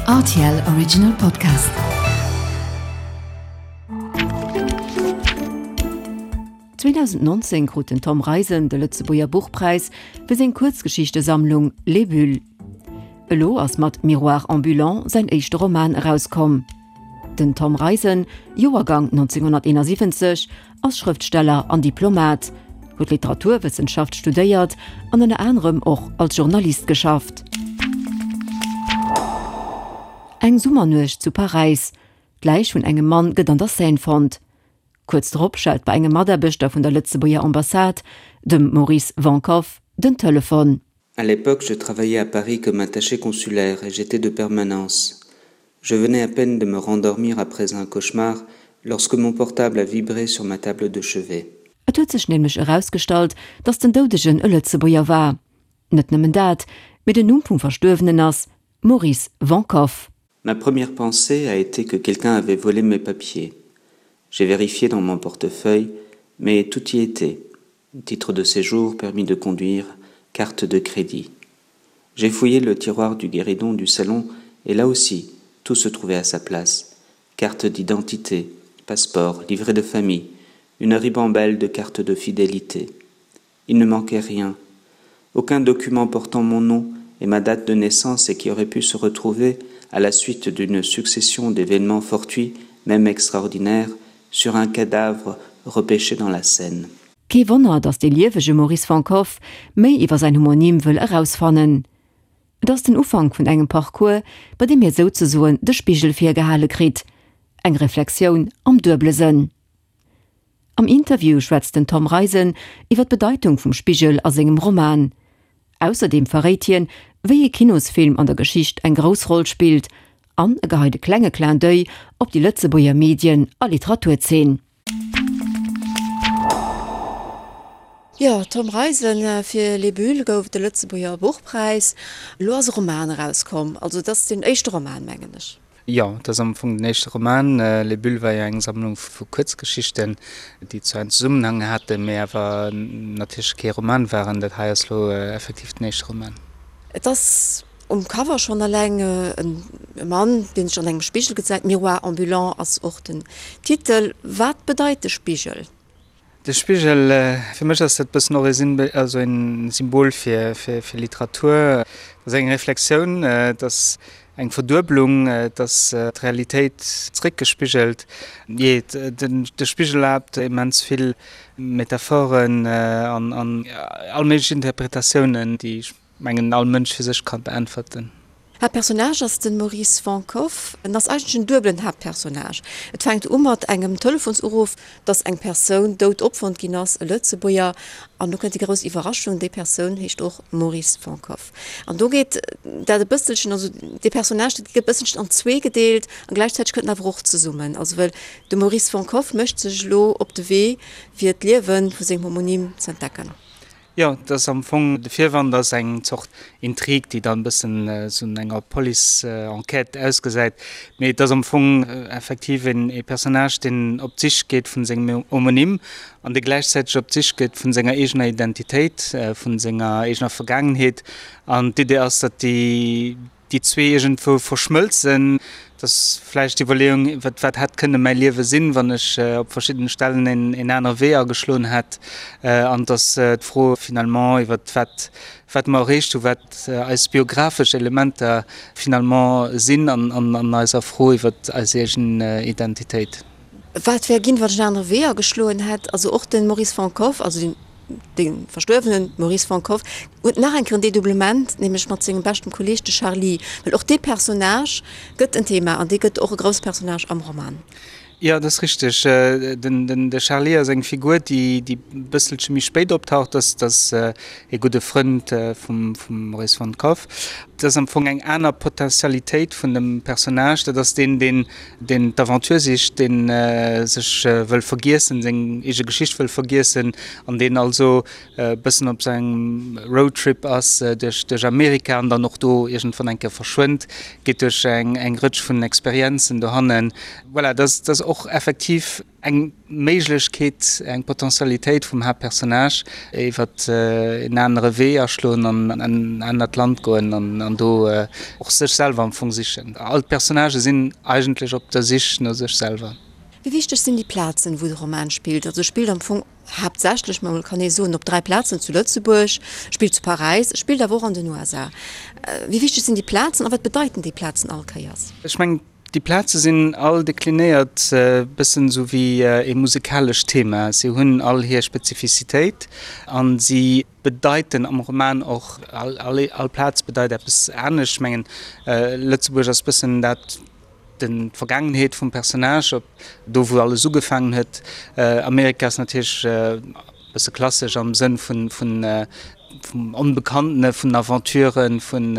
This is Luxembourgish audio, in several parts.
Rtl Original Podcast. 2019 krut den Tom Reisen de Lëtzebuerger Buchpräis fir seng Kuerzgeschichtesammlung Les Bulles. Elo ass mat Miroir ambulant säin éischte Roman erauskomm. Den Tom Reisen, Joergang 1971, ass Schrëftsteller an Diplomat, huet Literaturwëssenschaft studéiert an ënner anerem och als Journalist geschafft. Eng Summernuecht zu Paräis, D'Läich vun engem Mann gëtt an der Seine fonnt. Kuerz drop schellt bei engem Mataarbechter vun der Lëtzebuerger Ambassade, dem Maurice Vankoff, den Telefon. À l'époque, je travaillais à Paris comme attaché consulaire et j'étais de permanence. Je venais à peine de me rendormir après un cauchemar lorsque mon portable a vibré sur ma table de chevet. Et huet sech nämlech erausgestallt, datt den Doudegen e Lëtzebuerger war. Net nëmmen dat, mee den Numm vum Verstuerwenen ass Maurice Vankoff. Ma première pensée a été que quelqu'un avait volé mes papiers. J'ai vérifié dans mon portefeuille, mais tout y était. Titre de séjour, permis de conduire, carte de crédit. J'ai fouillé le tiroir du guéridon du salon et là aussi, tout se trouvait à sa place. Carte d'identité, passeport, livret de famille, une ribambelle de cartes de fidélité. Il ne manquait rien. Aucun document portant mon nom et ma date de naissance et qui aurait pu se retrouver à la suite d'une succession d'événements fortuits, même extraordinaires, sur un cadavre repêché dans la Seine. Kee Wonner, datt dee liewege Maurice van Koff méi iwwer säin Homonym wëll erausfannen. Et ass den Ufank vun engem Parcours, bei deem hie souzesoen de Spigel virgehale kritt, eng Reflexioun am duebele Sënn. Am Interview schwätzt den Tom Reisen iwwer d'Bedeitung vum Spigel a sengem Roman. Ausserdeem verréit hien, wéi ee Kinosfilm an der Geschicht eng grouss Roll spillt an e geheit e klenge Clin d'oeil op déi Lëtzebuerger Medien a Literaturzeen. Jo, Tom Reisen, fir Les Bulles gouf et de Lëtzebuerger Buchpräis. Elo ass e Roman erauskomm, also et ass deen éischte Roman, mengen ech. Jo, et ass am Fong den éischte Roman. Les Bulles war jo eng Sammlung vu Kuerzgeschichten, déi zwar en Zesummenhang haten, mee awer natierlech kee Roman waren. Dat hei ass lo effektiv den éischte Roman. Et ass um Cover schonn eleng e Mann, dee sech an engem Spigel gesäit. Miroir ambulant ass och den Titel. Wat bedeit de Spigel? De Spigel, fir mech ass dat bëssen och e also en Symbol fir fir Literatur. Et ass eng Reflexioun, et ass eng Verdueblung, et ass d'Realitéit zréckgespigelt. Jee, de Spigel erlaabt immens vill Metaphoren an all méiglech Interpretatiounen, déi ech mengen all Mënsch fir sech ka beäntwerten. Haaptpersonnage ass de Maurice Vankoff. En ass eigentlech en duebelen Haaptpersonnage. Et fänkt u mat engem Telefonsuruff, dass eng Persoun dout opfonnt ginn ass, e Lëtzebuerger. An do kënnt déi grouss Iwwerraschung, déi Persoun heescht och Maurice Vankoff. An do geet dat e bësselchen, also dee Personnage, dat gëtt e bësselchen an zwee gedeelt a gläichzäiteg kënnt en awer och zesummen. Also well de Maurice Vankoff mécht sech elo op de Wee, fir d'Liewe vu sengem Homonym z'entdecken. Jo, et ass am Fong, de Virwand ass eng Zort Intrig, déi dann e bëssen esou no enger Police-Enquête ausgesäit. Mee et ass am Fong effektiv een ee Personnage, deen op d'Sich geet vun sengem Homonym an dee gläichzäiteg op d'Sich geet vun senger eegener Identitéit, vun senger eegener Vergaangenheet. An d'Idee ass, datt déi déi zwee iergendwou verschmëlzen. Et ass vläicht d'Iwwerleeung, wat wat hätt kënne mäi Liewe sinn, wann ech op verschiddene Stellen een een anere Wee ageschloen hätt. An et ass d'Fro finalement iwwer wat wat mer erreecht hunn, wat eis biographesch Elementer finalement sinn an an eiser Fro iwwer eis eegen Identitéit. Wat wär ginn, wann ech en anere Wee ageschloen hätt? Also och de Maurice Vankoff, also den De verstuerwene Maurice Vankoff huet nach eng Kéier en Dedoublement, nämlech mat sengem beschten Kolleeg, de Charly. Well och dee Personnage gëtt en Thema an dee gëtt och e grousse Personnage am Roman. Jo, dat ass richteg. Den de Charly ass eng Figur, déi déi e bësselche méi spéit optaucht. Dat ass ee gudde Frënd vum vum Maurice Vankoff. Dat ass am Fong eng aner Potentialitéit vun dem Personnage. Dat ass deen, deen deen d'Aventure sicht, deen sech wëll vergiessen, seng eege Geschicht wëll vergiessen an deen also e bëssen op sengem Roadtrip ass duerch duerch Amerika an dann och do iergendwann eng Kéier verschwënnt, geet duerch eng eng Rëtsch vun Experienzen dohannen. Voilà, dat ass dat ass. och effektiv eng Méiglechkeet, eng Potentialitéit vum Haaptpersonnage, iwwer en anere Wee aschloen an en anert Land goen an do och sech selwer am Fong sichen. All d'Personnagë sinn eigentlech op der Sich no sech selwer. Wéi wichteg sinn déi Plazen, wou de Roman spillt? Also e spillt am Fong haaptsächlech, ma kann ee soen, op 3 Plazen, zu Lëtzebuerg, spillt zu Paräis, spillt awer och an den USA. Wéi wichteg sinn déi Plazen a wat bedeiten déi Plazen all Kéiers? Ech mengen, déi Plaze sinn all deklinéiert e bëssen esou wéi ee musikalescht Thema. Si hunn all hir Spezifizitéit a si bedeiten am Roman och, all Plaz bedeit eppes anescht. Ech mengen, Lëtzebuerg ass e bëssen dat, Den d'Vergaangenheet vum Personnage, op do wou alles ugefaangen huet. Amerika ass natierlech e bësse klassesch am Sënn vun vun vum Onbekannten, vun Aventuren, vun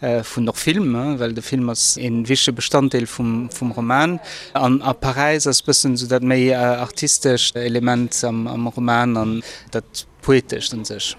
vun och Film, well de Film ass ee wichtege Bestanddeel vum vum Roman. An a Paräis ass bëssen esou dat méi artistescht Element am am Roman an dat Poetescht un sech.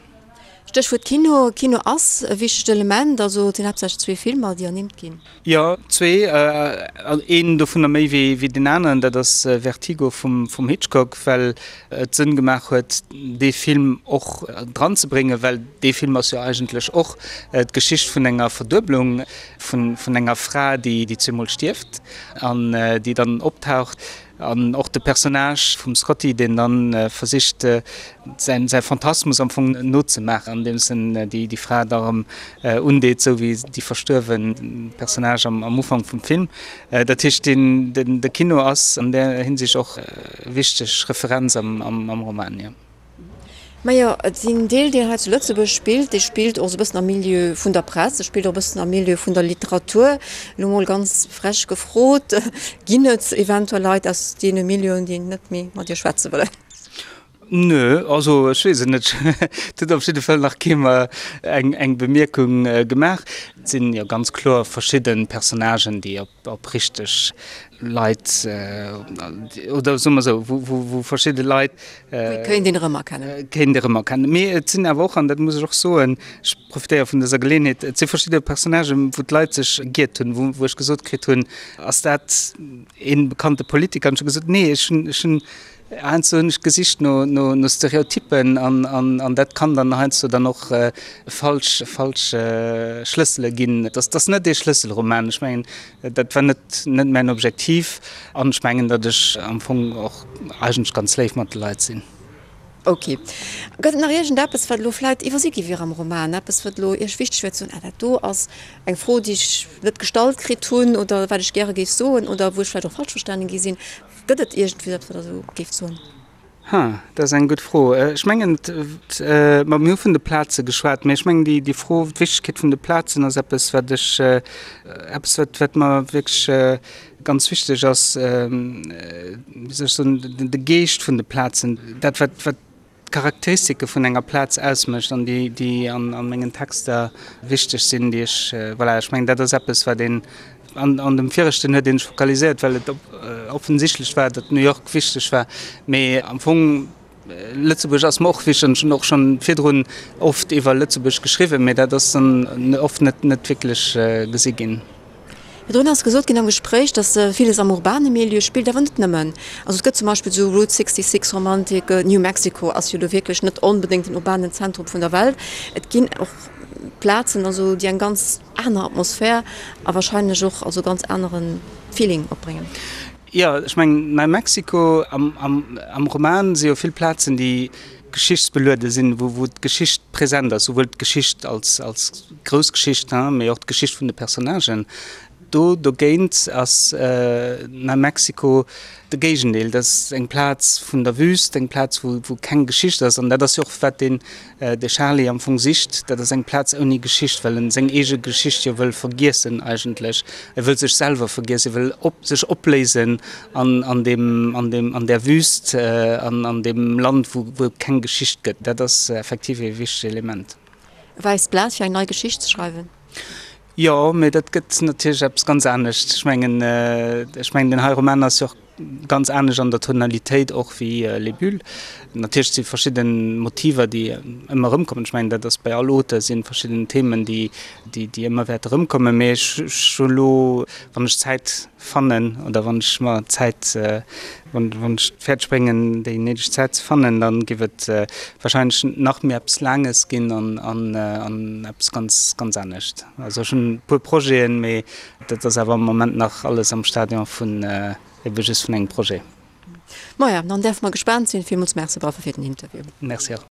Stéchwuert Kino, Kino ass e wichtegt Element, also et sinn haaptsächlech zwee Filmer, déi ernimmt ginn. Jo, zwee, een dovunner méi wéi deen aneren, dat ass Vertigo vum Hitchcock, well et Sënn gemaach huet, dee Film och dranzebréngen, well dee Film ass jo eigentlech och d'Geschicht vun enger Verdueblung, vun enger Fra, déi zweemol stierft an déi dann optaucht. An och de Personnage vum Scotty, deen dann versicht säin säi Phantasmus am Fong nozemaachen, andeems en déi déi Fra da erëm undeet, sou wéi déi verstuerwen Personnage am am Ufank vum Film. Dat heescht deen den de Kino ass an där Hinsicht och wichteg Referenz am am Roman, jo. Majo, et sinn Deel, deen hei zu Lëtzebuerg spillt, dee spillt och esou e bëssen am Milieu vun der Press, e spillt och e bëssen am Milieu vun der Literatur. Elo mol ganz frech gefrot, Ginn et eventuell Leit aus deene Milieuen, déi net méi mat Iech schwätze wëllen? Nö, also ech weess et net. Et huet op jidde Fall nach kee mer eng Bemierkung gemaach. Et sinn jo ganz kloer verschidde Personnagen, déi op op richteg Leit, oder soe mer esou, wou verschidde Leit. Wou kéint een erëmerkennen. Kéint erëmerkennen. Mee et sinn awer och, an dat muss ech och soen, ech profitéiere vun dëser Geleeënheet, et si verschidde Personnagen, wou d'Leit sech giert hunn, wou ech gesot kritt hunn, Ass dat ee bekannte Politiker? An ech hu gesot, Nee, ech hunn, ech hunn Heiansdo hunn ech gesicht no Stereotyppen an dat kann dann heiansdo dann och falsch falsch Schlëssele ginn. Et ass net ee Schlësselroman. Ech mengen, dat war net net mäin Objektiv an ech mengen, datt ech am Fong och eigentlech ganz léif mat de Leit sinn. Ok. Gëtt et nach iergendeppes, wat elo vläit iwwersi gi wier am Roman? Eppes, wat elo Iech wichteg wier ze soen, Ah, dat do ass eng Fro, déi ech net gestallt kritt hunn oder wat ech gäre géif soen oder wou ech vläicht och falsch verstanen gi sinn. Gëtt et iergendwéi eppes, wat Der esou géift soen? Ha, dat ass eng gutt Fro. Ech mengen, ma mir hu vun de Plaze geschwat, mä ech mengen, déi, déi Fro, d'Wichtegkeet vun de Plazen ass eppes, wat ech, eppes, wat, wat mer wierklech ganz wichteg ass, wéi soll ech soen, de Geescht vun de Plazen, dat, wat, wat d'Charakteristike vun enger Plaz ausmécht an déi, déi an mengen Texter wichteg sinn, déi ech, voilà, ech mengen, dat ass eppes, wat een, an, an dem viregten huet een sech fokaliséiert, well et offensichtlech war, datt New York wichteg war, mee am Fong, Lëtzebuerg ass mer och wichteg an ech hunn och schonn virdrun oft iwwer Lëtzebuerg geschriwwen, mee dat ass dann oft net, net wierklech gesi ginn. Virdrun ass gesot ginn am Gespréich, datt villes am urbane Milieu spillt, awer net nëmmen. Also et gëtt zum Beispill esou Route 66 Romantik, New Mexico ass jo elo wierklech net onbedéngt den urbanen Zentrum vun der Welt. Et ginn och Plazen, also déi eng ganz aner Atmosphär a wahrscheinlech och also ganz anere Feeling opbréngen. Jo, ech mengen Nei Mexico, am Roman si jo vill Plazen, déi geschichtsbeluede sinn, wou d'Geschicht present ass, souwuel d'Geschicht als grouss Geschicht, mee och d'Geschicht vun de Personnagen. Do dogéint ass Nei Mexico de Géigendeel, dat ass eng Plaz vun der Wüst, eng Plaz, wou keng Geschicht ass. An dat ass jo och, wat den de Charly am Fong sicht, dat ass eng Plaz ouni Geschicht, well en seng eege Geschicht jo wëll vergiessen eigentlech. E wëll sech selwer vergiessen, e wëll op, sech opléisen an, an deem, an deem, an där Wüst, an, an deem Land, wou, wou et keng Geschicht gëtt. Dat ass effektiv ee wichtegt Element. E wäisst Blat fir eng nei Geschicht ze schreiwen. Jo, mee dat gëtt natierlech eppes ganz anescht. Ech mengen, ech mengen, deen hei Roman ass jo och. ganz anescht an der Tonalitéit och wéi Les Bulles. Natierlech si verschidde Motiver, déi ëmmer erëmkommen. Ech mengen, dat ass bei all Auteur si verschidden Themen, déi, déi ëmmer wäerte erëmkommen. Mee ech hu elo, wann ech Zäit fannen oder wann ech mer Zäit, wann ech et fäerdeg bréngen, déi néideg Zäit ze fannen, da géif et warscheinlech nach méi eppes Laanges ginn an eppes ganz, ganz anescht. Also ech hunn e puer Projeten, mee dat ass awer am Moment nach alles am Stadion vun ebe just vun engem Projet. Maja, dann däerfe mer gespaant sinn. Villmools Merci, Bravo fir den Interview. Merci och.